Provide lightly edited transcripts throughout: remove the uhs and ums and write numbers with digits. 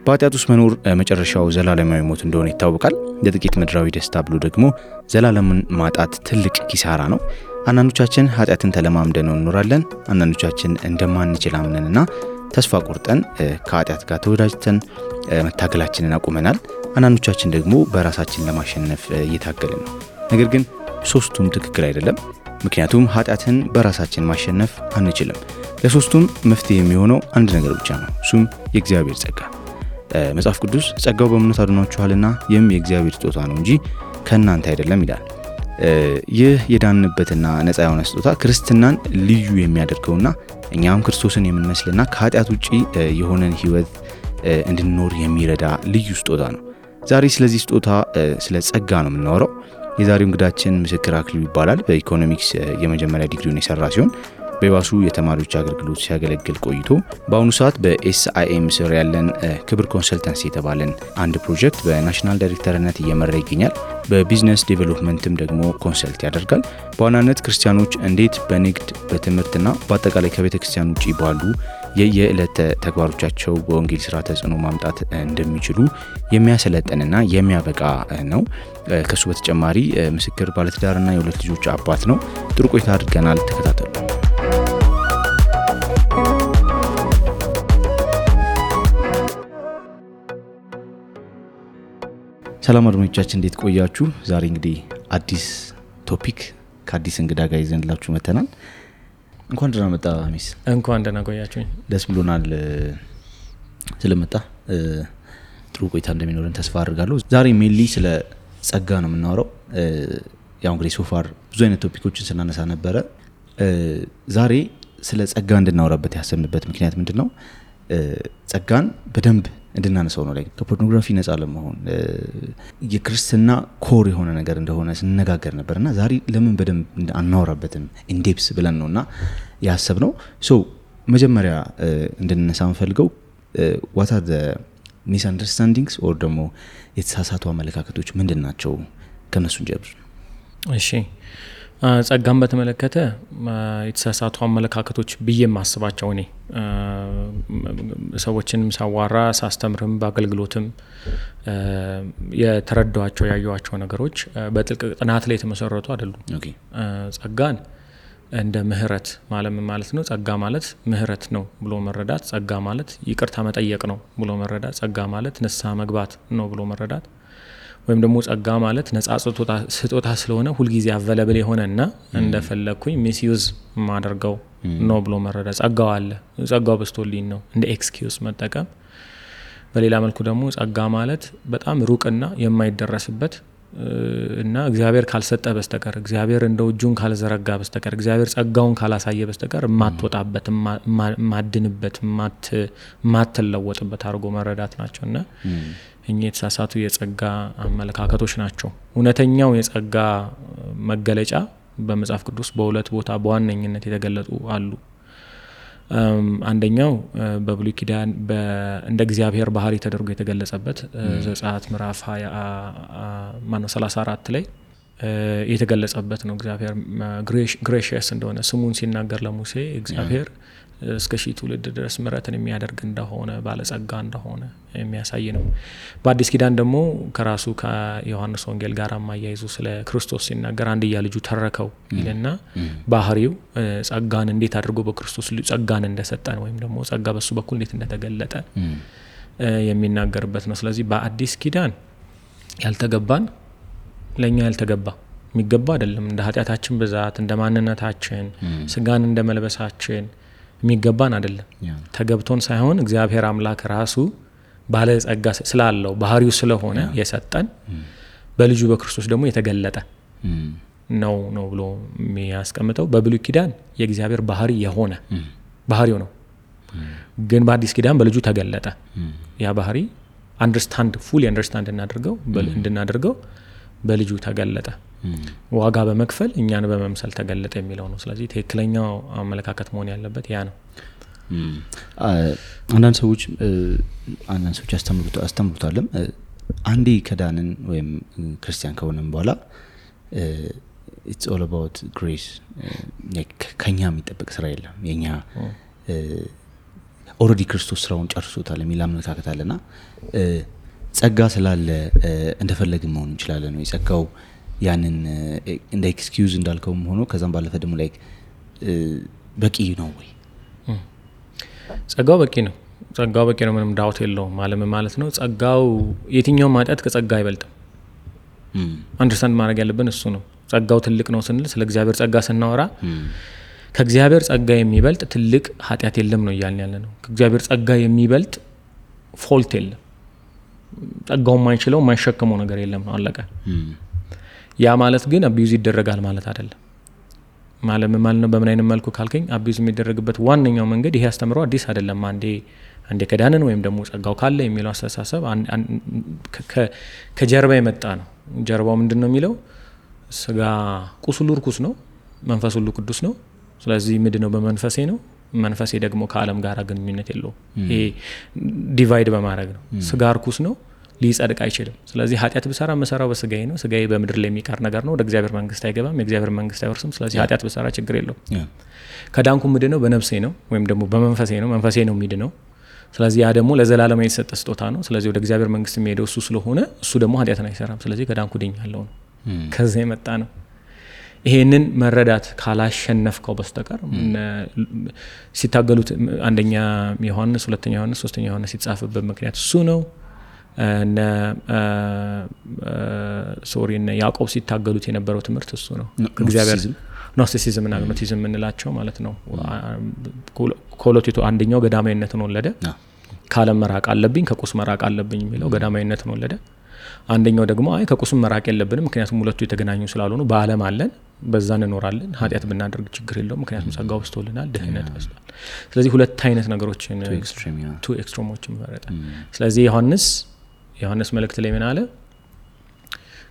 በኃጢአት ውስጥ መኖር መጨረሻው ዘላለማዊ ሞት እንደሆነ ይታወቃል። ለጥቂት ምድራዊ ደስታ ብሎ ደግሞ ዘላለምን ማጣት ትልቅ ኪሳራ ነው። አንዳንዶቻችን ኃጢአትን ተለማምደን እንኖራለን። አንዳንዶቻችን እንደማንችል አምነንና ተስፋ ቆርጠን ከኃጢአት ጋር ተወዳጅተን መታገላችንን አቁመናል። አንዳንዶቻችን ደግሞ በራሳችን ለማሸነፍ እየታገልን ነው። ነገር ግን ሶስቱም ትክክል አይደለም። ምክንያቱም ኃጢአትን በራሳችን ማሸነፍ አንችልም። ለሶስቱም መፍትሄ የሚሆነው አንድ ነገር ብቻ ነው። እሱም የእግዚአብሔር ጸጋ። መጽሐፍ ቅዱስ ጸጋው በእምነት አድኗችኋልና ይህም የእግዚአብሔር ስጦታ ነው እንጂ ከእናንተ አይደለም ይላል። ይህ የዳንበትና ነፃ የሆነ ስጦታ ክርስትናን ልዩ የሚያደርገውና እኛም ክርስቶስን የምንመስልና ከኃጢአት ውጪ የሆነን ህይወት እንድንኖር የሚረዳ ልዩ ስጦታ ነው። ዛሬ ስለዚህ ስጦታ ስለ ጸጋ ነው የምናወራው። የዛሬው እንግዳችን ምስክር አክሊሉ ይባላል። በኢኮኖሚክስ የመጀመሪያ ዲግሪውን የሰራ ሲሆን በባሱ የተማሪዎች አገልግሎት ሲያገለግል ቆይቶ በአሁኑ ሰዓት በኤስአይኤም ስር ያለን ክብር ኮንሰልተንሲ የተባለን አንድ ፕሮጀክት በናሽናል ዳይሬክተርነት እየመራ ይገኛል። በቢዝነስ ዴቨሎፕመንትም ደግሞ ኮንሰልት ያደርጋል። በዋናነት ክርስቲያኖች እንዴት በንግድ በትምህርትና በአጠቃላይ ከቤተ ክርስቲያን ውጪ ባሉ የየዕለት ተግባሮቻቸው በወንጌል ስራ ተጽዕኖ ማምጣት እንደሚችሉ የሚያሰለጥንና የሚያበቃ ነው። ከሱ በተጨማሪ ምስክር ባለትዳርና የሁለት ልጆች አባት ነው። ጥሩ ቆይታ አድርገናል። ተከታተሉ። ሰላም አድማጮቻችን እንዴት ቆያችሁ? ዛሬ እንግዲህ አዲስ ቶፒክ ከአዲስ እንግዳ ጋር ይዘንላችሁ መተናል። እንኳን ደህና መጣ ሚስ። እንኳን ደህና ቆያችሁኝ። ደስ ብሎናል ስለመጣ። ጥሩ ቆይታ እንደሚኖረን ተስፋ አድርጋለሁ። ዛሬ ሜንሊ ስለ ጸጋ ነው የምናወራው። ያው እንግዲህ ሶፋር ብዙ አይነት ቶፒኮችን ስናነሳ ነበረ። ዛሬ ስለ ጸጋ እንድናወራበት ያሰብንበት ምክንያት ምንድነው? ጸጋን በደንብ እንድናነሳው ነው። ከፖርኖግራፊ ነፃ ለመሆን የክርስትና ኮር የሆነ ነገር እንደሆነ ስንነጋገር ነበርና ዛሬ ለምን በደንብ አናወራበትም ኢንዴፕስ ብለን ነውና ያሰብነው። መጀመሪያ እንድንነሳ የምፈልገው what are the misunderstandings or ደግሞ የተሳሳቱ አመለካከቶች ምንድናቸው? ከነሱ እንጀምር። እሺ፣ ጸጋን በተመለከተ የተሳሳቱ አመለካከቶች ብዬ ማስባቸው እኔ ሰዎችንም ሳዋራ ሳስተምርም በአገልግሎትም የተረዳኋቸው ያዩዋቸው ነገሮች በጥልቅ ጥናት ላይ የተመሰረቱ አይደሉም። ጸጋን እንደ ምህረት ማለት ነው። ጸጋ ማለት ምህረት ነው ብሎ መረዳት፣ ጸጋ ማለት ይቅርታ መጠየቅ ነው ብሎ መረዳት፣ ጸጋ ማለት ንስሐ መግባት ነው ብሎ መረዳት፣ ወይም ደግሞ ጸጋ ማለት ነፃ ስጦታ ስለሆነ ሁልጊዜ አቬለብል የሆነና እንደፈለኩኝ ሚስዩዝ ማደርገው ነው ብሎ መረዳት። ጸጋው አለ፣ ጸጋው በስቶልኝ ነው እንደ ኤክስኪዩዝ መጠቀም። በሌላ መልኩ ደግሞ ጸጋ ማለት በጣም ሩቅና የማይደረስበት እና እግዚአብሔር ካልሰጠ በስተቀር እግዚአብሔር እንደው እጁን ካልዘረጋ በስተቀር እግዚአብሔር ጸጋውን ካላሳየ በስተቀር ማትወጣበት ማድንበት ማትለወጥበት አድርጎ መረዳት ናቸውና እኚህ የተሳሳቱ የጸጋ አመለካከቶች ናቸው። እውነተኛው የጸጋ መገለጫ በመጽሐፍ ቅዱስ በሁለት ቦታ በዋነኝነት የተገለጹ አሉ። አንደኛው በብሉይ ኪዳን እንደ እግዚአብሔር ባህሪ ተደርጎ የተገለጸበት ዘጸአት ምዕራፍ 34 ላይ የተገለጸበት ነው። እግዚአብሔር ግሬሺየስ እንደሆነ ስሙን ሲናገር ለሙሴ እግዚአብሔር እስከ ሺህ ትውልድ ድረስ ምሕረትን የሚያደርግ እንደሆነ ባለጸጋ እንደሆነ የሚያሳይ ነው። በአዲስ ኪዳን ደግሞ ከራሱ ከዮሐንስ ወንጌል ጋር ማያይዙ ስለ ክርስቶስ ሲናገር አንድያ ልጁ ተረከው ይልና ባህሪው ጸጋን እንዴት አድርጎ በክርስቶስ ጸጋን እንደሰጠን ወይም ደግሞ ጸጋ በሱ በኩል እንዴት እንደተገለጠ የሚናገርበት ነው። ስለዚህ በአዲስ ኪዳን ያልተገባን ለኛ ያልተገባ የሚገባ አይደለም። እንደ ኃጢአታችን ብዛት እንደ ማንነታችን ስጋን እንደ መልበሳችን የሚገባን አይደለም። ተገብቶን ሳይሆን እግዚአብሔር አምላክ ራሱ ባለ ጸጋ ስላለው ባህሪው ስለሆነ የሰጠን በልጁ በክርስቶስ ደግሞ የተገለጠ ነው ብሎ የሚያስቀምጠው። በብሉይ ኪዳን የእግዚአብሔር ባህሪ የሆነ ባህሪው ነው፣ ግን በአዲስ ኪዳን በልጁ ተገለጠ። ያ ባህሪ ፉሊ አንደርስታንድ እንድናደርገው በልጁ ተገለጠ። ዋጋ በመክፈል እኛን በመምሰል ተገለጠ የሚለው ነው። ስለዚህ ትክክለኛው አመለካከት መሆን ያለበት ያ ነው። አንዳንድ ሰዎች አስተምሩታለም አንዴ ከዳንን ወይም ክርስቲያን ከሆነን በኋላ it's all about grace ከኛ የሚጠበቅ ስራ የለም የኛ ኦሬዲ ክርስቶስ ስራውን ጨርሶታል የሚል አመለካከት አለና ጸጋ ስላለ እንደፈለግን መሆን እንችላለን ነው ጸጋው ያንን እንደ ኤክስኪዩዝ እንዳልከውም ሆኖ ከዛም ባለፈ ደግሞ ላይክ በቂ ነው ወይ ጸጋው በቂ ነው ምንም ዳውት የለውም ማለት ነው ጸጋው የትኛው ማጣት ከጸጋ አይበልጥም አንደርስታንድ ማድረግ ያለብን እሱ ነው ጸጋው ትልቅ ነው ስንል ስለ እግዚአብሔር ጸጋ ስናወራ ከእግዚአብሔር ጸጋ የሚበልጥ ትልቅ ኃጢአት የለም ነው እያልን ያለ ነው ከእግዚአብሔር ጸጋ የሚበልጥ ፎልት የለም ጸጋው የማይችለው የማይሸከመው ነገር የለም ነው አለቀ ያ ማለት ግን አቢዩዝ ይደረጋል ማለት አይደለም ማለት ነው በምን አይነት መልኩ ካልከኝ አቢዩዝ የሚደረግበት ዋነኛው መንገድ ይሄ አስተምሮ አዲስ አይደለም አንዴ ከዳንን ወይም ደግሞ ጸጋው ካለ የሚለው አስተሳሰብ ከጀርባ የመጣ ነው ጀርባው ምንድነው የሚለው ስጋ ቁስሉ ርኩስ ነው መንፈስ ሁሉ ቅዱስ ነው ስለዚህ ምንድነው በመንፈሴ ነው መንፈሴ ደግሞ ከዓለም ጋር ግንኙነት የለውም ይሄ ዲቫይድ በማድረግ ነው ስጋ ርኩስ ነው ሊጸድቅ አይችልም ስለዚህ ኃጢአት ብሰራ መሰራው በስጋዬ ነው ስጋዬ በምድር ላይ የሚቀር ነገር ነው ወደ እግዚአብሔር መንግስት አይገባም የእግዚአብሔር መንግስት አይወርስም ስለዚህ ኃጢአት ብሰራ ችግር የለውም ከዳንኩ ምንድነው በነፍሴ ነው ወይም ደግሞ በመንፈሴ ነው የሚድነው ስለዚህ ያ ደግሞ ለዘላለም የተሰጠ ስጦታ ነው ስለዚህ ወደ እግዚአብሔር መንግስት የሚሄደው እሱ ስለሆነ እሱ ደግሞ ኃጢአትን አይሰራም ስለዚህ ከዳንኩ ድኛለሁ ነው ከዛ የመጣ ነው ይሄንን መረዳት ካላሸነፍከው በስተቀር ሲታገሉት አንደኛ ዮሐንስ ሁለተኛ ዮሐንስ ሶስተኛ ዮሐንስ ሲጻፍበት ምክንያት እሱ ነው እና ያዕቆብ ሲታገሉት የነበረው ትምህርት እሱ ነው ከእግዚአብሔር ኖስቲሲዝም እና አግኖቲዝም እንላቸው ማለት ነው ኮሎቲቶ አንደኛው ገዳማዊነትን ወለደ ካለም መራቅ አለብኝ ከቁስ መራቅ አለብኝ የሚለው ገዳማዊነትን ወለደ አንደኛው ደግሞ አይ ከቁስም መራቅ የለብንም ምክንያቱም ሁለቱ የተገናኙ ስላልሆኑ በዓለም አለን በዛ እንኖራለን ኃጢአት ብናደርግ ችግር የለውም ምክንያቱም ጸጋው በስቶልናል ድህነት በስቷል ስለዚህ ሁለት አይነት ነገሮችን ቱ ኤክስትሪሞችን መረጠ ስለዚህ ዮሐንስ መልእክት ላይ ምን አለ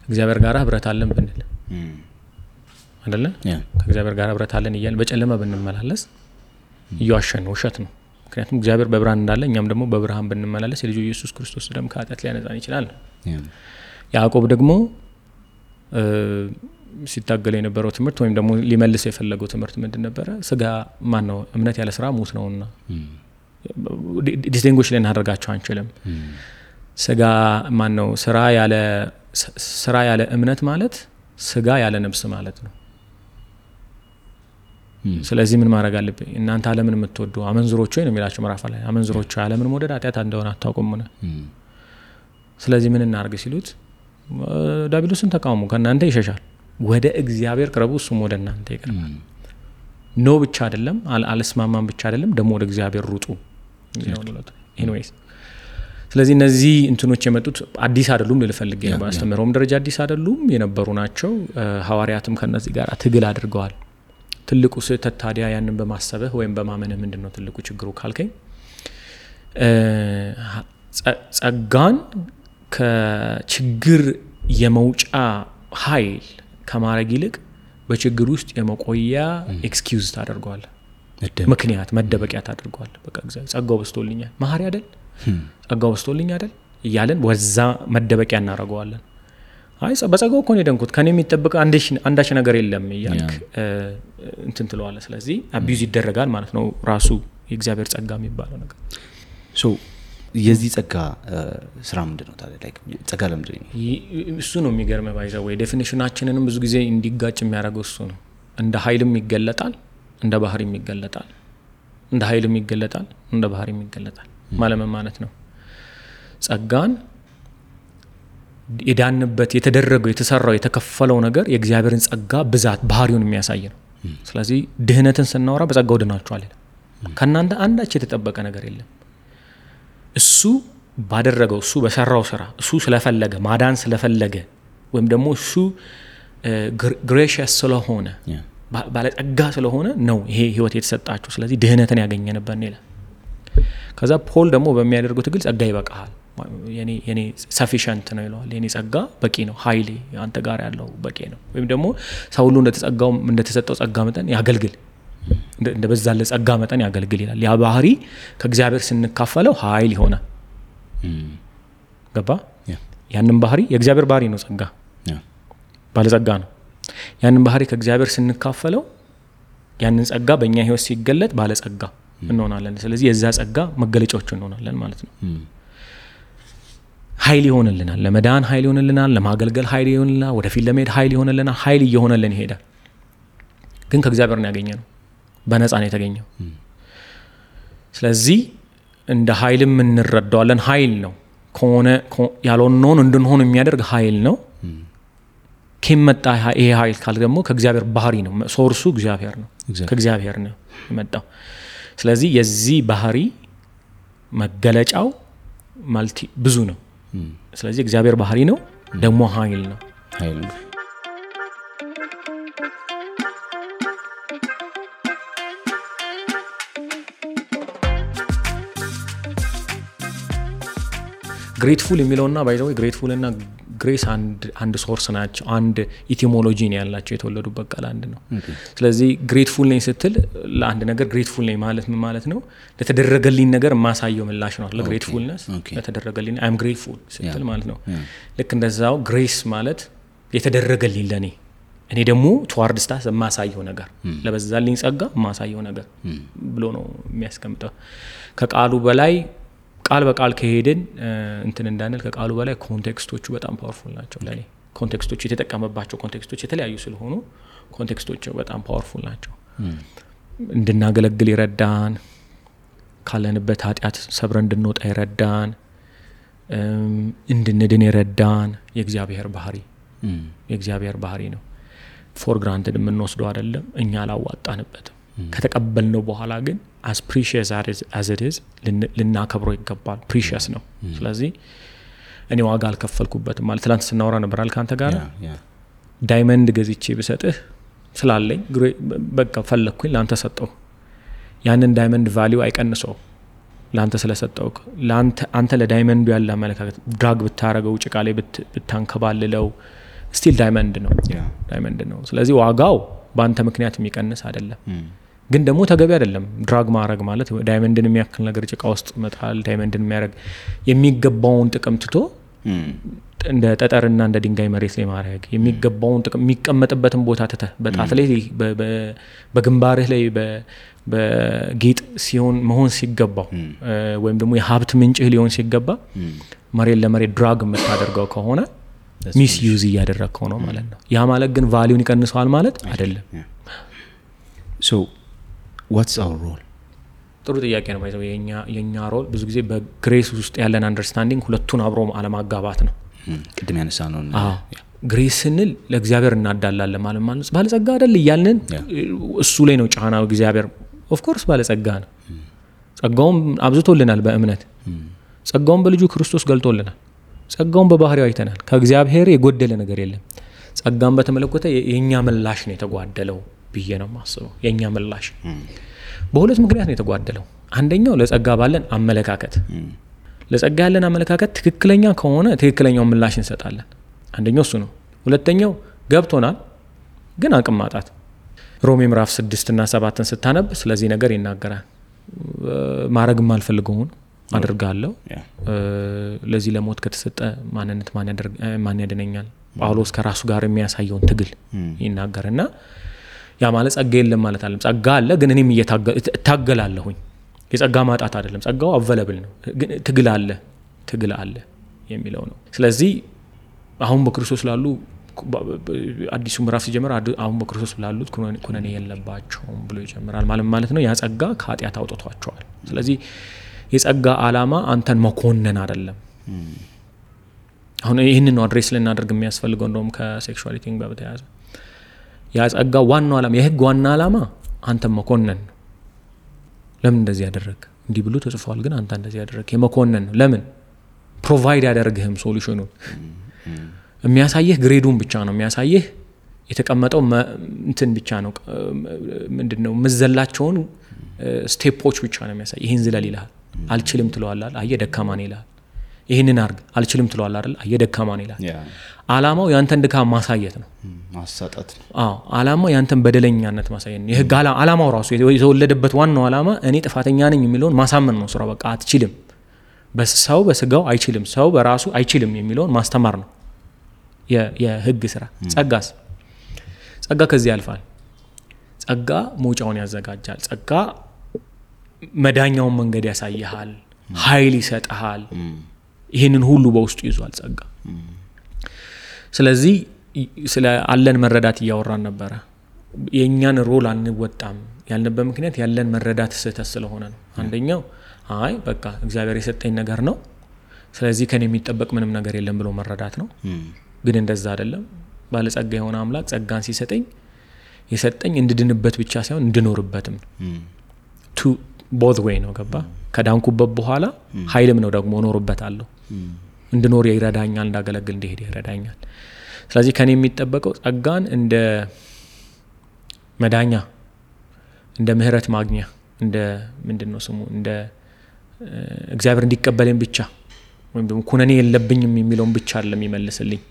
እግዚአብሔር ጋር ህብረት አለን ብንል አይደለ ከእግዚአብሔር ጋር ህብረት አለን ይያል በጨለማ ብንመላለስ ይዋሸን ውሸት ነው ምክንያቱም እግዚአብሔር በብርሃን እንዳለ እኛም ደግሞ በብርሃን ብንመላለስ የልጁ ኢየሱስ ክርስቶስ ደም ከኃጢአት ሊያነጻን ይችላል ያዕቆብ ደግሞ ሲታገል የነበረው ትምህርት ወይም ደግሞ ሊመልስ የፈለገው ትምህርት ምንድን ነበረ ስጋ ማን ነው እምነት ያለ ስራ ሙት ነውና ዲስቲንጉሽ ልናደርጋቸው አንችልም ስጋ ማን ነው ስራ ያለ እምነት ማለት ስጋ ያለ ነፍስ ማለት ነው ስለዚህ ምን ማድረግ አለብኝ እናንተ ዓለምን የምትወዱ አመንዝሮች ወይ ነው የሚላቸው ምዕራፍ ላይ አመንዝሮች ዓለምን መውደድ ኃጢአት እንደሆነ አታውቁም ነው ስለዚህ ምን እናርግ ሲሉት ዳቢሎስን ተቃውሙ ከእናንተ ይሸሻል ወደ እግዚአብሔር ቅረቡ እሱም ወደ እናንተ ይቀርባል ኖ ብቻ አይደለም አልስማማም ብቻ አይደለም ደግሞ ወደ እግዚአብሔር ሩጡ ኤኒዌይስ ስለዚህ እነዚህ እንትኖች የመጡት አዲስ አይደሉም ልፈልግ ነው በአስተምሮም ደረጃ አዲስ አይደሉም የነበሩ ናቸው ሐዋርያትም ከነዚህ ጋር ትግል አድርገዋል ትልቁ ስህተት ታዲያ ያንን በማሰብህ ወይም በማመንህ ምንድነው ትልቁ ችግሩ ካልከኝ ጸጋን ከችግር የመውጫ ኃይል ከማረግ ይልቅ በችግር ውስጥ የመቆያ ኤክስኪዩዝ ታደርገዋል ምክንያት መደበቂያ ታደርገዋል በቃ እግዚአብሔር ጸጋው በስቶልኛል ማህሪ አይደል ጸጋው በስቶልኛል አይደል ይያለን ወዛ መደበቂያ እናረጋዋለን አይ በጸጋው እኮ ነው የደንኩት ከኔ የሚጠብቅ አንዳች ነገር የለም ይያልክ እንትን ትለዋለህ ስለዚህ አቢዩዝ ይደረጋል ማለት ነው ራሱ የእግዚአብሔር ጸጋ የሚባለው ነገር ሶ የዚህ ጸጋ ስራ ምንድነው ታዲያ ላይክ ጸጋ ለምንድን ነው እሱ ነው የሚገርመው ባይዘው ወይ ዴፊኒሽናችንንም ብዙ ጊዜ እንዲጋጭ የሚያደርገው እሱ ነው እንደ ኃይልም ይገለጣል እንደ ባህሪም ይገለጣል እንደ ኃይልም ይገለጣል እንደ ባህሪም ይገለጣል ማለት ነው ጸጋን የዳንበት የተደረገው የተሰራው የተከፈለው ነገር የእግዚአብሔርን ጸጋ ብዛት ባህሪውን የሚያሳይ ነው ስለዚህ ድህነትን ስናወራ በጸጋው ድናችኋል ከናንተ አንዳች የተጠበቀ ነገር የለም እሱ ባደረገው እሱ በሰራው ስራ እሱ ስለፈለገ ማዳን ስለፈለገ ወይም ደግሞ እሱ ግሬሺየስ ስለሆነ ባለጸጋ ስለሆነ ነው ይሄ ህይወት የተሰጣችሁ ስለዚህ ድህነትን ያገኘንበት ነው ከዛ ፖል ደግሞ በሚያደርገው ትግል ጸጋ ይበቃል የኔ ሰፊሽንት ነው ይላል የኔ ጸጋ በቂ ነው ኃይሌ አንተ ጋር ያለው በቂ ነው ወይም ደግሞ ሰው ሁሉ እንደተሰጠው ጸጋ መጠን ያገልግል እንደበዛለ ጸጋ መጠን ያገልግል ይላል ያ ባህሪ ከእግዚአብሔር ስንካፈለው ኃይል ይሆናል ገባ ያንን ባህሪ የእግዚአብሔር ባህሪ ነው ጸጋ ባለ ጸጋ ነው ያንን ባህሪ ከእግዚአብሔር ስንካፈለው ያንን ጸጋ በእኛ ህይወት ሲገለጥ ባለጸጋ እንሆናለን። ስለዚህ የዛ ጸጋ መገለጫዎች እንሆናለን ማለት ነው። ኃይል ይሆንልናል፣ ለመዳን ኃይል ይሆንልናል፣ ለማገልገል ኃይል ይሆንልናል፣ ወደፊት ለመሄድ ኃይል ይሆንልናል። ኃይል እየሆነልን ይሄዳል። ግን ከእግዚአብሔር ነው ያገኘነው፣ በነፃ ነው የተገኘው። ስለዚህ እንደ ኃይልም እንረዳዋለን። ኃይል ነው ከሆነ ያልሆነውን እንድንሆን የሚያደርግ ኃይል ነው። ከመጣ ይሄ ኃይል ካል ደግሞ ከእግዚአብሔር ባህሪ ነው። ሶርሱ እግዚአብሔር ነው፣ ከእግዚአብሔር ነው የመጣው። ስለዚህ የዚህ ባህሪ መገለጫው ማልቲ ብዙ ነው። ስለዚህ እግዚአብሔር ባህሪ ነው ደግሞ ኃይል ነው። ግሬትፉል የሚለውና ባይዘው ግሬትፉል እና ግሬስ አንድ ሶርስ ናቸው። አንድ ኢቲሞሎጂ ነው ያላቸው፣ የተወለዱበት ቃል አንድ ነው። ስለዚህ ግሬትፉል ነኝ ስትል ለአንድ ነገር ግሬትፉል ነኝ ማለት ምን ማለት ነው? ለተደረገልኝ ነገር ማሳየው ምላሽ ነው። ለግሬትፉልነስ ለተደረገልኝ አይ አም ግሬትፉል ስትል ማለት ነው። ልክ እንደዛው ግሬስ ማለት የተደረገልኝ ለኔ እኔ ደግሞ ቱዋርድ ስታስ ማሳየው ነገር ለበዛልኝ ጸጋ ማሳየው ነገር ብሎ ነው የሚያስቀምጠው። ከቃሉ በላይ ቃል በቃል ከሄድን እንትን እንዳንል ከቃሉ በላይ ኮንቴክስቶቹ በጣም ፓወርፉል ናቸው። ለኔ ኮንቴክስቶቹ የተጠቀመባቸው ኮንቴክስቶች የተለያዩ ስለሆኑ ኮንቴክስቶቹ በጣም ፓወርፉል ናቸው። እንድናገለግል ይረዳን፣ ካለንበት ኃጢአት ሰብረን እንድንወጣ ይረዳን፣ እንድንድን ይረዳን። የእግዚአብሔር ባህሪ ነው። ፎር ግራንትድ የምንወስደው አይደለም፣ እኛ አላዋጣንበትም። ከተቀበልነው በኋላ ግን as precious as it is ልናከብረው ይገባል። ፕሪሺየስ ነው። ስለዚህ እኔ ዋጋ አልከፈልኩበትም ማለት ትላንት ስናወራ ነበር አልካንተ ጋር ዳይመንድ ገዝቼ ብሰጥህ ስላለኝ በቃ ፈለኩኝ ላንተ ሰጠው። ያንን ዳይመንድ ቫልዩ አይቀንሰው ላንተ ስለሰጠው። አንተ ለዳይመንዱ ያለ አመለካከት ድራግ ብታረገው ጭቃ ላይ ብታንከባልለው ስቲል ዳይመንድ ነው። ስለዚህ ዋጋው በአንተ ምክንያት የሚቀንስ አይደለም። ግን ደግሞ ተገቢ አይደለም ድራግ ማድረግ ማለት ዳይመንድን የሚያክል ነገር ጭቃ ውስጥ መጣል። ዳይመንድን የሚያደርግ የሚገባውን ጥቅም ትቶ እንደ ጠጠርና እንደ ድንጋይ መሬት ላይ ማድረግ የሚገባውን ጥቅም የሚቀመጥበትን ቦታ ትተህ በጣት ላይ በግንባርህ ላይ በጌጥ ሲሆን መሆን ሲገባው ወይም ደግሞ የሀብት ምንጭህ ሊሆን ሲገባ መሬት ለመሬት ድራግ የምታደርገው ከሆነ ሚስ ዩዝ እያደረግከው ነው ማለት ነው። ያ ማለት ግን ቫሊዩን ይቀንሰዋል ማለት አይደለም። so what's our role? ጥሩ ጥያቄ ነው። ባይዘው የኛ ሮል ብዙ ጊዜ በግሬስ ውስጥ ያለን አንደርስታንዲንግ ሁለቱን አብሮ አለማጋባት ነው። ቅድም ያነሳ ነው። ግሬስ ስንል ለእግዚአብሔር እናዳላለን ማለት ባለጸጋ አይደል እያልን እሱ ላይ ነው ጫናው። እግዚአብሔር ኦፍ ኮርስ ባለጸጋ ነው። ጸጋውን አብዝቶልናል በእምነት ጸጋውን በልጁ ክርስቶስ ገልጦልናል። ጸጋውን በባህሪው አይተናል። ከእግዚአብሔር የጎደለ ነገር የለም። ጸጋን በተመለከተ የኛ ምላሽ ነው የተጓደለው ብዬ ነው ማስበው። የኛ ምላሽ በሁለት ምክንያት ነው የተጓደለው። አንደኛው ለጸጋ ባለን አመለካከት፣ ለጸጋ ያለን አመለካከት ትክክለኛ ከሆነ ትክክለኛው ምላሽ እንሰጣለን። አንደኛው እሱ ነው። ሁለተኛው ገብቶናል ግን አቅም ማጣት። ሮሜ ምዕራፍ 6 እና 7 ስታነብ ስለዚህ ነገር ይናገራል። ማረግም አልፈልገውን አድርጋለሁ፣ ለዚህ ለሞት ከተሰጠ ማንነት ማን ያድነኛል? ጳውሎስ ከራሱ ጋር የሚያሳየውን ትግል ይናገርና ያ ማለት ጸጋ የለም ማለት አይደለም። ጸጋ አለ ግን እኔም እታገላለሁኝ። የጸጋ ማጣት አይደለም፣ ጸጋው አቬለብል ነው ግን ትግል አለ የሚለው ነው። ስለዚህ አሁን በክርስቶስ ላሉ አዲሱ ምዕራፍ ሲጀምር አሁን በክርስቶስ ላሉት ኩነኔ የለባቸውም ብሎ ይጀምራል። ማለት ነው ያ ጸጋ ከኃጢአት አውጥቷቸዋል። ስለዚህ የጸጋ ዓላማ አንተን መኮነን አይደለም። አሁን ይህንን ነው አድሬስ ልናደርግ የሚያስፈልገው። እንደውም ከሴክሹዋሊቲ ጋር በተያያዘ ያ ጸጋ ዋናው ዓላማ የህግ ዋና ዓላማ አንተን መኮነን ነው። ለምን እንደዚህ ያደረግ እንዲህ ብሎ ተጽፏል ግን አንተ እንደዚህ ያደረግ የመኮነን ነው። ለምን ፕሮቫይድ ያደርግህም ሶሉሽኑን የሚያሳየህ ግሬዱን ብቻ ነው የሚያሳየህ። የተቀመጠው እንትን ብቻ ነው ምንድነው መዘላቸውን ስቴፖች ብቻ ነው የሚያሳየህ። ይሄን ዝለል ይልሃል፣ አልችልም ትለዋለህ፣ አየህ ደካማ ነህ ይልሃል። ይሄንን አርግ አልችልም ትለዋለህ አይደል፣ አየህ ደካማ ነህ ይልሃል። ዓላማው ያንተን ድካም ማሳየት ነው፣ ማሳጣት ነው። ዓላማው ያንተን በደለኛነት ማሳየት ነው። የህግ ዓላማው ራሱ የተወለደበት ዋናው ዓላማ እኔ ጥፋተኛ ነኝ የሚለውን ማሳመን ነው። ስራው በቃ አትችልም፣ በሰው በስጋው አይችልም፣ ሰው በራሱ አይችልም የሚለውን ማስተማር ነው የህግ ስራ። ጸጋስ ጸጋ ከዚህ ያልፋል። ጸጋ መውጫውን ያዘጋጃል። ጸጋ መዳኛውን መንገድ ያሳይሃል፣ ኃይል ይሰጥሃል። ይህንን ሁሉ በውስጡ ይዟል ጸጋ። ስለዚህ ስለ አለን መረዳት እያወራን ነበረ። የእኛን ሮል አንወጣም ያልንበት ምክንያት ያለን መረዳት ስህተት ስለሆነ ነው። አንደኛው አይ በቃ እግዚአብሔር የሰጠኝ ነገር ነው፣ ስለዚህ ከኔ የሚጠበቅ ምንም ነገር የለም ብሎ መረዳት ነው። ግን እንደዛ አይደለም። ባለጸጋ የሆነ አምላክ ጸጋን ሲሰጠኝ የሰጠኝ እንድድንበት ብቻ ሳይሆን እንድኖርበትም ቱ ቦዝ ዌይ ነው። ገባ? ከዳንኩበት በኋላ ኃይልም ነው ደግሞ እኖርበታለሁ። እንድኖር ይረዳኛል፣ እንዳገለግል እንዲሄድ ይረዳኛል። ስለዚህ ከኔ የሚጠበቀው ጸጋን እንደ መዳኛ፣ እንደ ምህረት ማግኛ፣ እንደ ምንድነው ስሙ እንደ እግዚአብሔር እንዲቀበለኝ ብቻ ወይም ደግሞ ኩነኔ የለብኝም የሚለውን ብቻ አይደለም ይመልስልኝ፣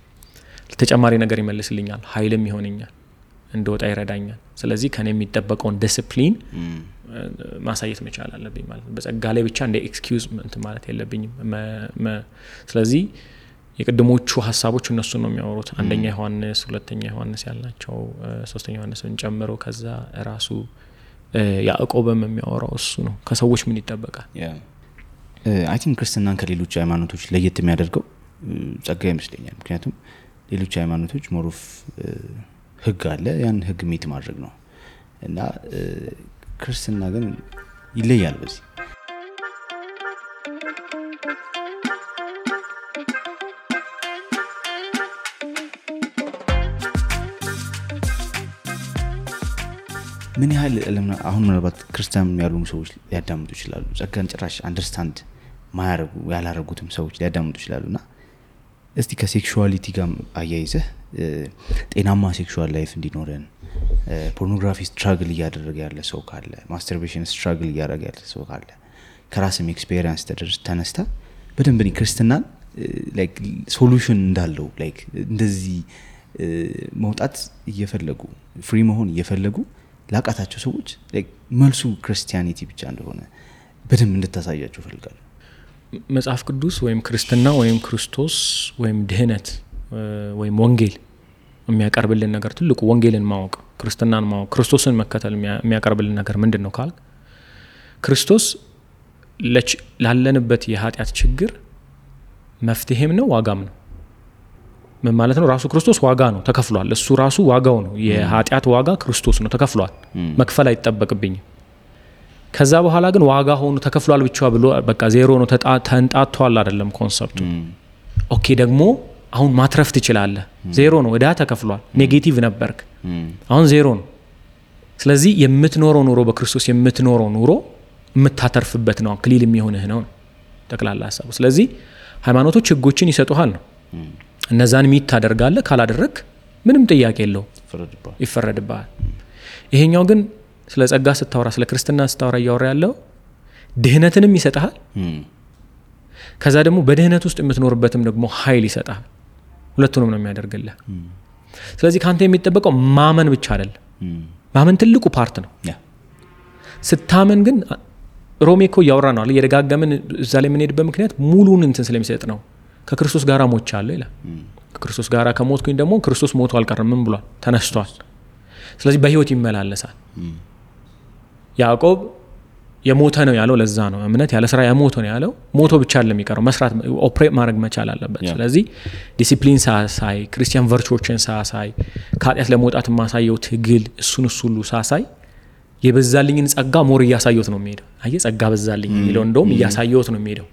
ተጨማሪ ነገር ይመልስልኛል፣ ኃይልም ይሆነኛል፣ እንደወጣ ይረዳኛል። ስለዚህ ከኔ የሚጠበቀውን ዲሲፕሊን ማሳየት መቻል አለብኝ ማለት ነው። በጸጋ ላይ ብቻ እንደ ኤክስኪውዝ እንትን ማለት የለብኝም። ስለዚህ የቅድሞቹ ሀሳቦች እነሱን ነው የሚያወሩት። አንደኛ ዮሐንስ፣ ሁለተኛ ዮሐንስ ያልናቸው፣ ሶስተኛ ዮሐንስን ጨምሮ ከዛ ራሱ ያዕቆብም የሚያወራው እሱ ነው። ከሰዎች ምን ይጠበቃል? አይ ቲንክ ክርስትናን ከሌሎች ሃይማኖቶች ለየት የሚያደርገው ጸጋ ይመስለኛል። ምክንያቱም ሌሎች ሃይማኖቶች ሞሮፍ ህግ አለ፣ ያን ህግ ሜት ማድረግ ነው እና ክርስትና ግን ይለያል በዚህ። ምን ያህል አሁን ምናልባት ክርስቲያን ያልሆኑ ሰዎች ሊያዳምጡ ይችላሉ። ጸጋን ጭራሽ አንደርስታንድ ማያረጉ ያላረጉትም ሰዎች ሊያዳምጡ ይችላሉና እስቲ ከሴክሹዋሊቲ ጋር አያይዘህ ጤናማ ሴክሹዋል ላይፍ እንዲኖረን ፖርኖግራፊ ስትራግል እያደረገ ያለ ሰው ካለ፣ ማስተርቤሽን ስትራግል እያደረገ ያለ ሰው ካለ ከራስም ኤክስፔሪየንስ ተነስታ በደንብ ክርስትናን ላይክ ሶሉሽን እንዳለው ላይክ እንደዚህ መውጣት እየፈለጉ ፍሪ መሆን እየፈለጉ ላቃታቸው ሰዎች ላይክ መልሱ ክርስቲያኒቲ ብቻ እንደሆነ በደንብ እንድታሳያቸው ፈልጋለሁ። መጽሐፍ ቅዱስ ወይም ክርስትና ወይም ክርስቶስ ወይም ድህነት ወይም ወንጌል የሚያቀርብልን ነገር ትልቁ ወንጌልን ማወቅ፣ ክርስትናን ማወቅ፣ ክርስቶስን መከተል የሚያቀርብልን ነገር ምንድነው ካል ክርስቶስ ላለንበት የኃጢአት ችግር መፍትሄም ነው ዋጋም ነው። ምን ማለት ነው? ራሱ ክርስቶስ ዋጋ ነው፣ ተከፍሏል። እሱ ራሱ ዋጋው ነው። የኃጢአት ዋጋ ክርስቶስ ነው፣ ተከፍሏል። መክፈል አይጠበቅብኝም። ከዛ በኋላ ግን ዋጋ ሆኖ ተከፍሏል ብቻ ብሎ በቃ ዜሮ ነው ተንጣቷል አይደለም ኮንሰፕቱ። ኦኬ ደግሞ አሁን ማትረፍ ትችላለህ። ዜሮ ነው፣ እዳ ተከፍሏል። ኔጌቲቭ ነበርክ፣ አሁን ዜሮ ነው። ስለዚህ የምትኖረው ኑሮ በክርስቶስ የምትኖረው ኑሮ የምታተርፍበት ነው፣ ክሊል የሚሆንህ ነው ጠቅላላ ሐሳቡ። ስለዚህ ሃይማኖቶች ህጎችን ይሰጡሃል ነው። እነዛን ሚት ታደርጋለህ፣ ካላደረክ ምንም ጥያቄ የለው ይፈረድብሃል። ይሄኛው ግን ስለ ጸጋ ስታወራ፣ ስለ ክርስትና ስታወራ እያወራ ያለው ድህነትንም ይሰጣል፣ ከዛ ደግሞ በድህነት ውስጥ የምትኖርበትም ደግሞ ኃይል ይሰጣል። ሁለቱንም ነው የሚያደርግልህ። ስለዚህ ካንተ የሚጠበቀው ማመን ብቻ አይደለም። ማመን ትልቁ ፓርት ነው። ስታመን ግን ሮሜ እኮ እያወራ ነው አለ የደጋገምን እዛ ላይ የምንሄድበት ምክንያት ሙሉን እንትን ስለሚሰጥ ነው። ከክርስቶስ ጋር ሞቻለሁ ይላል። ከክርስቶስ ጋር ከሞትኩኝ ደግሞ ክርስቶስ ሞቶ አልቀረም፣ ምን ብሏል? ተነስቷል። ስለዚህ በህይወት ይመላለሳል። ያዕቆብ የሞተ ነው ያለው ለዛ ነው። እምነት ያለ ስራ የሞተ ነው ያለው። ሞቶ ብቻ አይደለም የሚቀረው፣ መስራት ኦፕሬት ማድረግ መቻል አለበት። ስለዚህ ዲሲፕሊን ሳሳይ፣ ክርስቲያን ቨርቹዎችን ሳሳይ፣ ከኃጢአት ለመውጣት የማሳየው ትግል እሱን ሁሉ ሳሳይ የበዛልኝን ጸጋ ሞር እያሳየሁት ነው የሚሄደው። አየህ ጸጋ በዛልኝ የሚለው እንደውም እያሳየሁት ነው የሚሄደው።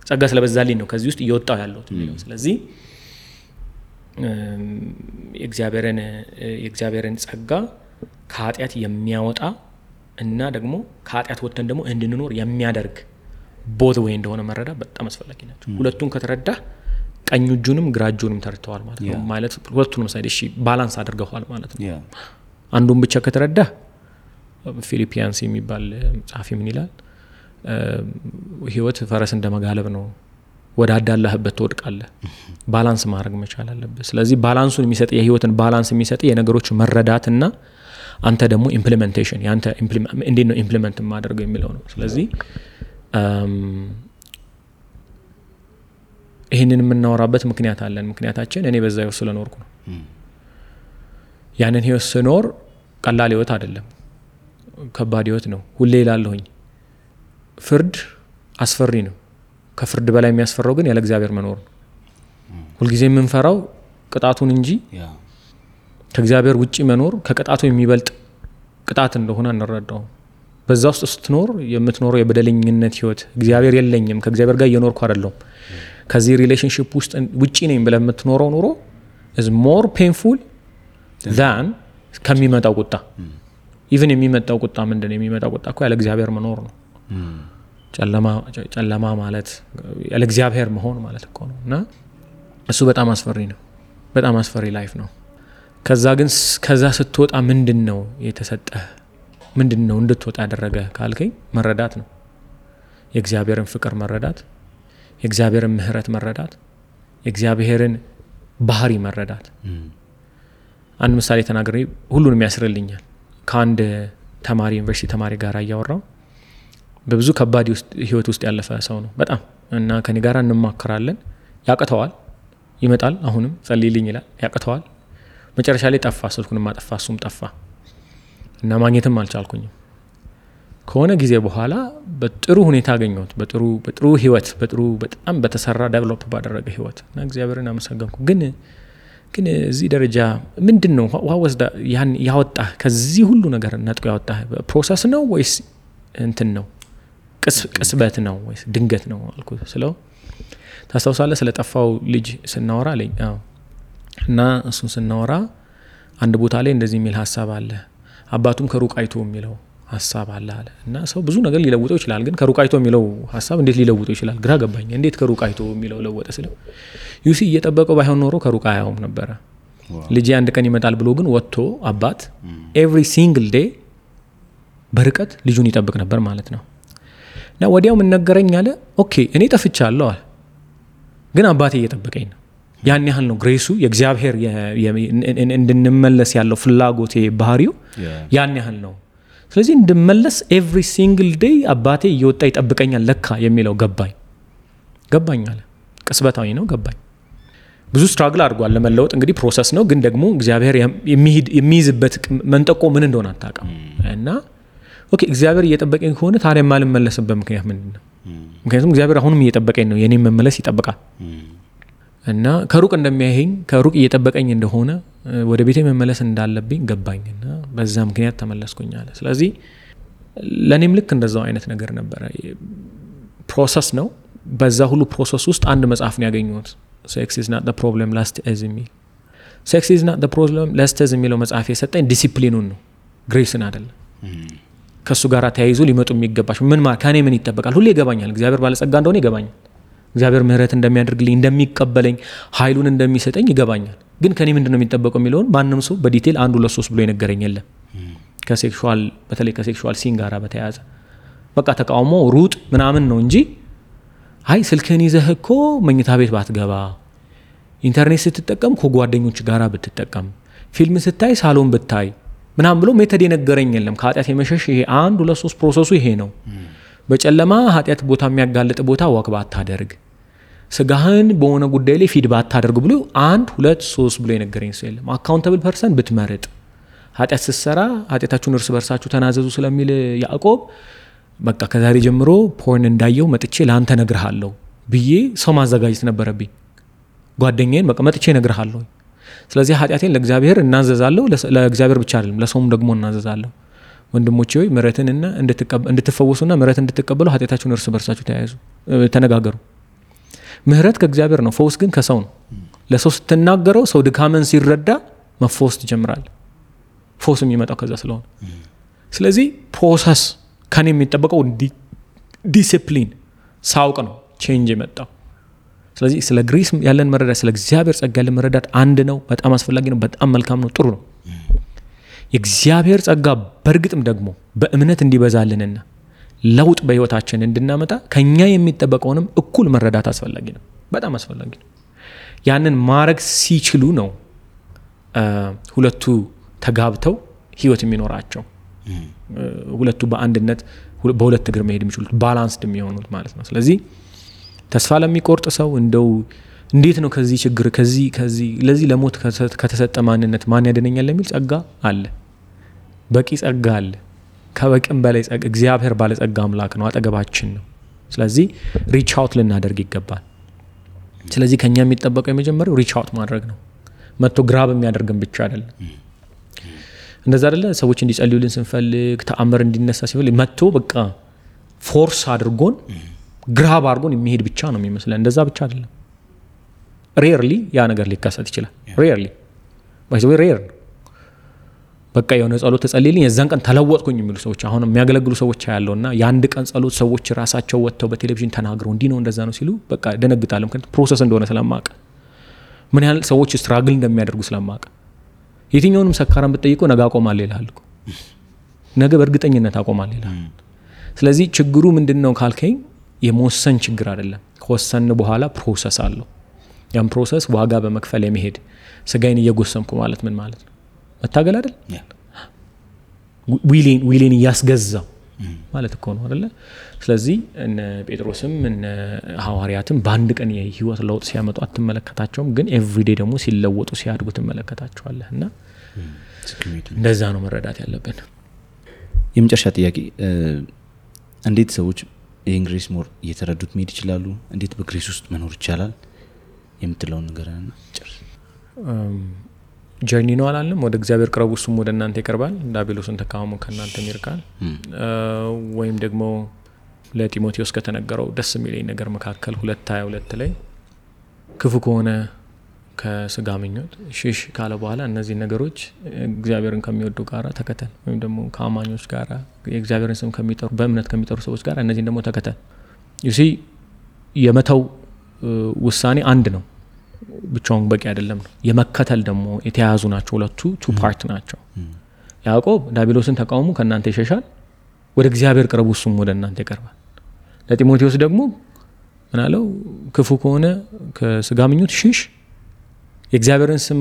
ጸጋ ስለበዛልኝ ነው ከዚህ ውስጥ እየወጣው ያለሁት የሚለው። ስለዚህ የእግዚአብሔርን ጸጋ ከኃጢአት የሚያወጣ እና ደግሞ ከኃጢአት ወጥተን ደግሞ እንድንኖር የሚያደርግ ቦት ወይ እንደሆነ መረዳት በጣም አስፈላጊ ናቸው። ሁለቱን ከተረዳ ቀኝ እጁንም ግራ እጁንም ተርተዋል ማለት ነው። ማለት ሁለቱንም ሳይድ እሺ ባላንስ አድርገዋል ማለት ነው። አንዱን ብቻ ከተረዳ ፊሊፒያንስ የሚባል ጻፊ ምን ይላል? ህይወት ፈረስ እንደመጋለብ ነው፣ ወደ አዳላህበት ትወድቃለህ። ባላንስ ማድረግ መቻል አለበት። ስለዚህ ባላንሱን የሚሰጥ የህይወትን ባላንስ የሚሰጥ የነገሮች መረዳትና አንተ ደግሞ ኢምፕሊሜንቴሽን ያንተ እንዴት ነው ኢምፕሊሜንት ማድረገው የሚለው ነው። ስለዚህ ይሄንን የምናወራበት ምክንያት አለን። ምክንያታችን እኔ በዛው ስለኖርኩ ነው። ያንን ህይወት ስኖር ቀላል ህይወት አይደለም፣ ከባድ ህይወት ነው። ሁሌ እላለሁኝ ፍርድ አስፈሪ ነው። ከፍርድ በላይ የሚያስፈራው ግን ያለ እግዚአብሔር መኖር ነው። ሁልጊዜ የምንፈራው ቅጣቱን እንጂ ከእግዚአብሔር ውጪ መኖር ከቅጣቱ የሚበልጥ ቅጣት እንደሆነ እንረዳው። በዛ ውስጥ ስትኖር የምትኖረው የበደለኝነት ህይወት፣ እግዚአብሔር የለኝም ከእግዚአብሔር ጋር እየኖርኩ አይደለም ከዚህ ሪሌሽንሺፕ ውስጥ ውጪ ነኝ ብለህ የምትኖረው ኑሮ is more painful than ከሚመጣው ቁጣ። ኢቭን የሚመጣው ቁጣ ምንድነው? የሚመጣው ቁጣ እኮ ያለ እግዚአብሔር መኖር ነው። ጨለማ ማለት ያለ እግዚአብሔር መሆን ማለት እኮ ነው። እና እሱ በጣም አስፈሪ ነው፣ በጣም አስፈሪ ላይፍ ነው። ከዛ ስትወጣ ምንድነው የተሰጠህ? ምንድነው እንድትወጣ ያደረገ ካልከኝ መረዳት ነው። የእግዚአብሔርን ፍቅር መረዳት፣ የእግዚአብሔርን ምህረት መረዳት፣ የእግዚአብሔርን ባህሪ መረዳት። አንድ ምሳሌ ተናግሬ ሁሉንም ያስርልኛል። ከአንድ ተማሪ ዩኒቨርሲቲ ተማሪ ጋር እያወራው በብዙ ከባድ ህይወት ውስጥ ያለፈ ሰው ነው በጣም እና ከኔ ጋር እንማከራለን። ያቀተዋል፣ ይመጣል፣ አሁንም ጸልይልኝ ይላል። ያቀተዋል። መጨረሻ ላይ ጠፋ፣ ስልኩንም አጠፋ፣ እሱም ጠፋ እና ማግኘትም አልቻልኩኝም። ከሆነ ጊዜ በኋላ በጥሩ ሁኔታ አገኘሁት፣ በጥሩ ህይወት፣ በጣም በተሰራ ዴቨሎፕ ባደረገ ህይወት እና እግዚአብሔርን አመሰገንኩ። ግን እዚህ ደረጃ ምንድነው ዋወስዳ ያወጣ ከዚህ ሁሉ ነገር ነጥቆ ያወጣ ፕሮሰስ ነው ወይስ እንትን ነው ቅስበት ነው ወይስ ድንገት ነው አልኩት። ስለው ታስታውሳለህ ስለጠፋው ልጅ ስናወራ አለኝ። አዎ። እና እሱን ስናወራ አንድ ቦታ ላይ እንደዚህ የሚል ሐሳብ አለ፣ አባቱም ከሩቅ አይቶ የሚለው ሐሳብ አለ አለ። እና ሰው ብዙ ነገር ሊለውጠው ይችላል፣ ግን ከሩቅ አይቶ የሚለው ሐሳብ እንዴት ሊለውጠው ይችላል? ግራ ገባኝ። እንዴት ከሩቅ አይቶ የሚለው ለወጠ ስለው ዩሲ እየጠበቀው ባይሆን ኖሮ ከሩቅ አያውም ነበረ። ልጅ አንድ ቀን ይመጣል ብሎ ግን ወጥቶ አባት ኤቭሪ ሲንግል ዴይ በርቀት ልጁን ይጠብቅ ነበር ማለት ነው። እና ወዲያው ምን ነገረኝ አለ፣ ኦኬ እኔ ጠፍቻለሁ አለ፣ ግን አባቴ እየጠበቀኝ ነው። ያን ያህል ነው ግሬሱ፣ የእግዚአብሔር እንድንመለስ ያለው ፍላጎቴ ባህሪው ያን ያህል ነው። ስለዚህ እንድመለስ ኤቭሪ ሲንግል ዴይ አባቴ እየወጣ ይጠብቀኛል ለካ የሚለው ገባኝ አለ። ቅስበታዊ ነው፣ ገባኝ። ብዙ ስትራግል አድርጓል ለመለወጥ። እንግዲህ ፕሮሰስ ነው፣ ግን ደግሞ እግዚአብሔር የሚይዝበት መንጠቆ ምን እንደሆነ አታውቅም። እና ኦኬ እግዚአብሔር እየጠበቀኝ ከሆነ ታዲያ የማልመለስበት ምክንያት ምንድን ነው? ምክንያቱም እግዚአብሔር አሁንም እየጠበቀኝ ነው፣ የኔን መመለስ ይጠብቃል። እና ከሩቅ እንደሚያየኝ ከሩቅ እየጠበቀኝ እንደሆነ ወደ ቤቴ መመለስ እንዳለብኝ ገባኝ። እና በዛ ምክንያት ተመለስኩኝ አለ። ስለዚህ ለእኔም ልክ እንደዛው አይነት ነገር ነበረ። ፕሮሰስ ነው። በዛ ሁሉ ፕሮሰስ ውስጥ አንድ መጽሐፍ ነው ያገኘሁት፣ ሴክስ ኢዝ ናት ዘ ፕሮብለም ላስት ኢዝ የሚል። ሴክስ ኢዝ ናት ዘ ፕሮብለም ላስት ኢዝ የሚለው መጽሐፍ የሰጠኝ ዲሲፕሊኑን ነው፣ ግሬስን አይደለም። ከሱ ጋር ተያይዞ ሊመጡ የሚገባቸው ከኔ ምን ይጠበቃል? ሁሌ ይገባኛል፣ እግዚአብሔር ባለጸጋ እንደሆነ ይገባኛል፣ እግዚአብሔር ምህረት እንደሚያደርግልኝ፣ እንደሚቀበለኝ፣ ኃይሉን እንደሚሰጠኝ ይገባኛል። ግን ከኔ ምንድነው የሚጠበቀው የሚለውን ማንም ሰው በዲቴል 1 2 3 ብሎ የነገረኝ የለም። በተለይ ከሴክሹዋል ሲን ጋር በተያያዘ በቃ ተቃውሞ ሩጥ ምናምን ነው እንጂ አይ ስልክህን ይዘህ እኮ መኝታ ቤት ባትገባ፣ ኢንተርኔት ስትጠቀም ከጓደኞች ጋር ብትጠቀም፣ ፊልም ስታይ ሳሎን ብታይ ምናምን ብሎ ሜተድ የነገረኝ የለም። ከኃጢአት የመሸሽ ይሄ 1 2 3 ፕሮሰሱ ይሄ ነው። በጨለማ ኃጢአት ቦታ የሚያጋልጥ ቦታ ወክ ባታደርግ፣ ስጋህን በሆነ ጉዳይ ላይ ፊድ ባታደርግ ብሎ 1 2 3 ብሎ የነገረኝ ሰው የለም። አካውንታብል ፐርሰን ብትመርጥ፣ ኃጢአት ስትሰራ ኃጢአታችሁን እርስ በርሳችሁ ተናዘዙ ስለሚል ያዕቆብ በቃ ከዛሬ ጀምሮ ፖርን እንዳየው መጥቼ ለአንተ ነግርሃለሁ ብዬ ሰው ማዘጋጀት ነበረብኝ። ጓደኛዬን በቃ መጥቼ ነግርሃለሁ። ስለዚህ ኃጢአቴን ለእግዚአብሔር እናዘዛለሁ፣ ለእግዚአብሔር ብቻ አይደለም ለሰውም ደግሞ እናዘዛለሁ። ወንድሞቼ ሆይ ምሕረትንና እንድትፈወሱና ምሕረት እንድትቀበሉ ኃጢአታችሁን እርስ በርሳችሁ ተነጋገሩ። ምሕረት ከእግዚአብሔር ነው፣ ፈውስ ግን ከሰው ነው። ለሰው ስትናገረው ሰው ድካምን ሲረዳ መፈወስ ትጀምራል። ፈውስ የሚመጣው ከዛ ስለሆነ ስለዚህ ፕሮሰስ ከኔ የሚጠበቀው ዲሲፕሊን ሳውቅ ነው ቼንጅ የመጣው። ስለዚህ ስለ ግሬስ ያለን መረዳት፣ ስለ እግዚአብሔር ጸጋ ያለን መረዳት አንድ ነው፣ በጣም አስፈላጊ ነው፣ በጣም መልካም ነው፣ ጥሩ ነው። የእግዚአብሔር ጸጋ በእርግጥም ደግሞ በእምነት እንዲበዛልንና ለውጥ በህይወታችን እንድናመጣ ከኛ የሚጠበቀውንም እኩል መረዳት አስፈላጊ ነው፣ በጣም አስፈላጊ ነው። ያንን ማድረግ ሲችሉ ነው ሁለቱ ተጋብተው ህይወት የሚኖራቸው፣ ሁለቱ በአንድነት በሁለት እግር መሄድ የሚችሉት፣ ባላንስድ የሚሆኑት ማለት ነው። ስለዚህ ተስፋ ለሚቆርጥ ሰው እንደው እንዴት ነው ከዚህ ችግር ከዚህ ለዚህ ለሞት ከተሰጠ ማንነት ማን ያድነኛል የሚል ጸጋ አለ። በቂ ጸጋ አለ። ከበቂም በላይ ጸጋ እግዚአብሔር ባለ ጸጋ አምላክ ነው፣ አጠገባችን ነው። ስለዚህ ሪች አውት ልናደርግ ይገባል። ስለዚህ ከኛ የሚጠበቀው የመጀመሪያው ሪች አውት ማድረግ ነው። መጥቶ ግራብ የሚያደርግን ብቻ አይደለም። እንደዛ አይደለ ሰዎች እንዲጸልዩልን ስንፈልግ ተአምር እንዲነሳ ሲፈልግ መጥቶ በቃ ፎርስ አድርጎን ግራብ አድርጎን የሚሄድ ብቻ ነው የሚመስለን። እንደዛ ብቻ አይደለም። ሬርሊ ያ ነገር ሊከሰት ይችላል። ሬርሊ ባይዘው ሬር በቃ የሆነ ጸሎት ተጸልይልኝ የዛን ቀን ተለወጥኩኝ የሚሉ ሰዎች አሁን የሚያገለግሉ ሰዎች ያለውና የአንድ ቀን ጸሎት ሰዎች ራሳቸው ወጥተው በቴሌቪዥን ተናግረው እንዲህ ነው እንደዛ ነው ሲሉ በቃ ደነግጣለሁ። ምክንያቱም ፕሮሰስ እንደሆነ ስለማቀ ምን ያህል ሰዎች ስትራግል እንደሚያደርጉ ስለማቀ የትኛውንም ሰካራም ብትጠይቀው ነገ አቆማለሁ ይላል እኮ ነገ በእርግጠኝነት አቆማለሁ ይላል። ስለዚህ ችግሩ ምንድነው ካልከኝ የመወሰን ችግር አይደለም። ከወሰን በኋላ ፕሮሰስ አለው። ያን ፕሮሰስ ዋጋ በመክፈል የመሄድ ስጋዬን እየጎሰምኩ ማለት ምን ማለት ነው? መታገል አይደል? ዊሌን እያስገዛው ማለት እኮ ነው አይደለ? ስለዚህ እነ ጴጥሮስም እነ ሐዋርያትም በአንድ ቀን የህይወት ለውጥ ሲያመጡ አትመለከታቸውም፣ ግን ኤቭሪዴ ደግሞ ሲለወጡ ሲያድጉ ትመለከታቸዋለህ። እና እንደዛ ነው መረዳት ያለብን። የመጨረሻ ጥያቄ እንዴት ሰዎች ይህን ግሬስ ሞር እየተረዱት መሄድ ይችላሉ? እንዴት በግሬስ ውስጥ መኖር ይቻላል የምትለውን ነገር ጨርስ። ጀርኒ ነው አላለም? ወደ እግዚአብሔር ቅረቡ እሱም ወደ እናንተ ይቀርባል፣ ዲያብሎስን ተቃወሙ ከእናንተም ይርቃል። ወይም ደግሞ ለጢሞቴዎስ ከተነገረው ደስ የሚለኝ ነገር መካከል 2:22 ላይ ክፉ ከሆነ ከስጋ ምኞት ሽሽ ካለ በኋላ እነዚህ ነገሮች እግዚአብሔርን ከሚወዱ ጋራ ተከተል፣ ወይም ደግሞ ከአማኞች ጋራ የእግዚአብሔርን ስም ከሚጠሩ በእምነት ከሚጠሩ ሰዎች ጋር እነዚህን ደግሞ ተከተል። ዩሲ የመተው ውሳኔ አንድ ነው፣ ብቻውን በቂ አይደለም ነው። የመከተል ደግሞ የተያያዙ ናቸው። ሁለቱ ቱ ፓርት ናቸው። ያዕቆብ ዲያብሎስን ተቃውሙ ከእናንተ ይሸሻል፣ ወደ እግዚአብሔር ቅረቡ እሱም ወደ እናንተ ይቀርባል። ለጢሞቴዎስ ደግሞ ምን አለው? ክፉ ከሆነ ከስጋ ምኞት ሽሽ፣ የእግዚአብሔርን ስም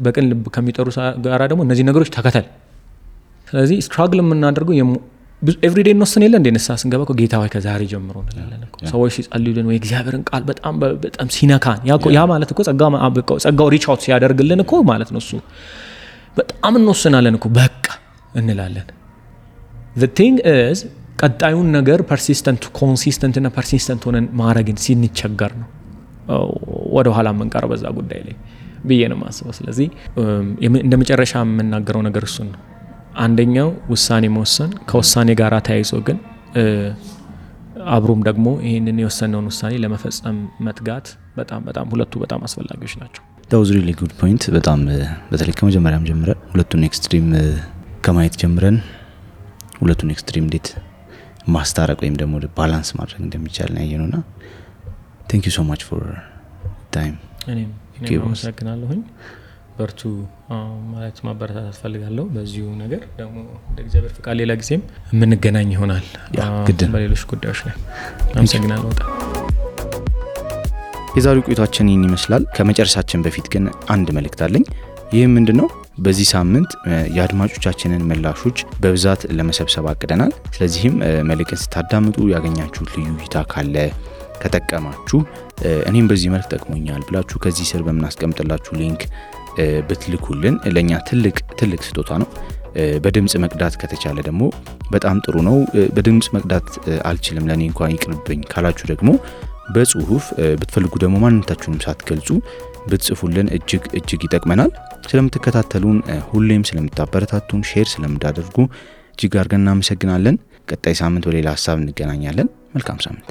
በቅን ልብ ከሚጠሩ ጋራ ደግሞ እነዚህ ነገሮች ተከተል። ስለዚህ ስትራግል የምናደርገው ኤቭሪዴይ እንወስን የለ እንደ ንስሐ ስንገባ እኮ ጌታ ሆይ ከዛሬ ጀምሮ እንላለን እኮ። ሰዎች ሲጸልዩልን ወይ እግዚአብሔርን ቃል በጣም ሲነካን ያ ማለት እኮ ጸጋው ሪች አውት ሲያደርግልን እኮ ማለት ነው። እሱ በጣም እንወስናለን እኮ በቃ እንላለን። the thing is ቀጣዩን ነገር ኮንሲስተንት እና ፐርሲስተንት ሆነን ማድረግን ሲንቸገር ነው ወደ ኋላ የምንቀረው በዛ ጉዳይ ላይ ብዬ ነው የማስበው። ስለዚህ እንደ መጨረሻ የምናገረው ነገር እሱን ነው። አንደኛው ውሳኔ መወሰን፣ ከውሳኔ ጋር ተያይዞ ግን አብሮም ደግሞ ይህንን የወሰነውን ውሳኔ ለመፈጸም መትጋት በጣም ሁለቱ በጣም አስፈላጊዎች ናቸው። that was really good point። በጣም በተለይ ከመጀመሪያም ጀምረን ሁለቱን ኤክስትሪም ከማየት ጀምረን ሁለቱን ኤክስትሪም እንዴት ማስታረቅ ወይም ደግሞ ባላንስ ማድረግ እንደሚቻል ነው ያየነውና thank you so much for time። እኔም አመሰግናለሁኝ። በርቱ ማለት ማበረታታት ፈልጋለሁ። በዚሁ ነገር ደግሞ እንደ እግዚአብሔር ፍቃድ ሌላ ጊዜም የምንገናኝ ይሆናል በሌሎች ጉዳዮች ላይ። አመሰግናለሁ በጣም። የዛሬው ቆይታችን ይህን ይመስላል። ከመጨረሻችን በፊት ግን አንድ መልእክት አለኝ። ይህም ምንድነው? በዚህ ሳምንት የአድማጮቻችንን ምላሾች በብዛት ለመሰብሰብ አቅደናል። ስለዚህም መልእክት ስታዳምጡ ያገኛችሁት ልዩ እይታ ካለ ከጠቀማችሁ እኔም በዚህ መልክ ጠቅሞኛል ብላችሁ ከዚህ ስር በመናስቀምጥላችሁ ሊንክ ብትልኩልን ለኛ ትልቅ ስጦታ ነው። በድምጽ መቅዳት ከተቻለ ደግሞ በጣም ጥሩ ነው። በድምጽ መቅዳት አልችልም ለኔ እንኳን ይቅርብኝ ካላችሁ ደግሞ በጽሁፍ ብትፈልጉ ደግሞ ማንነታችሁንም ሳትገልጹ ብትጽፉልን እጅግ ይጠቅመናል። ስለምትከታተሉን ሁሌም ስለምታበረታቱን ሼር ስለምታደርጉ እጅግ አድርገን እናመሰግናለን። ቀጣይ ሳምንት በሌላ ሐሳብ እንገናኛለን። መልካም ሳምንት።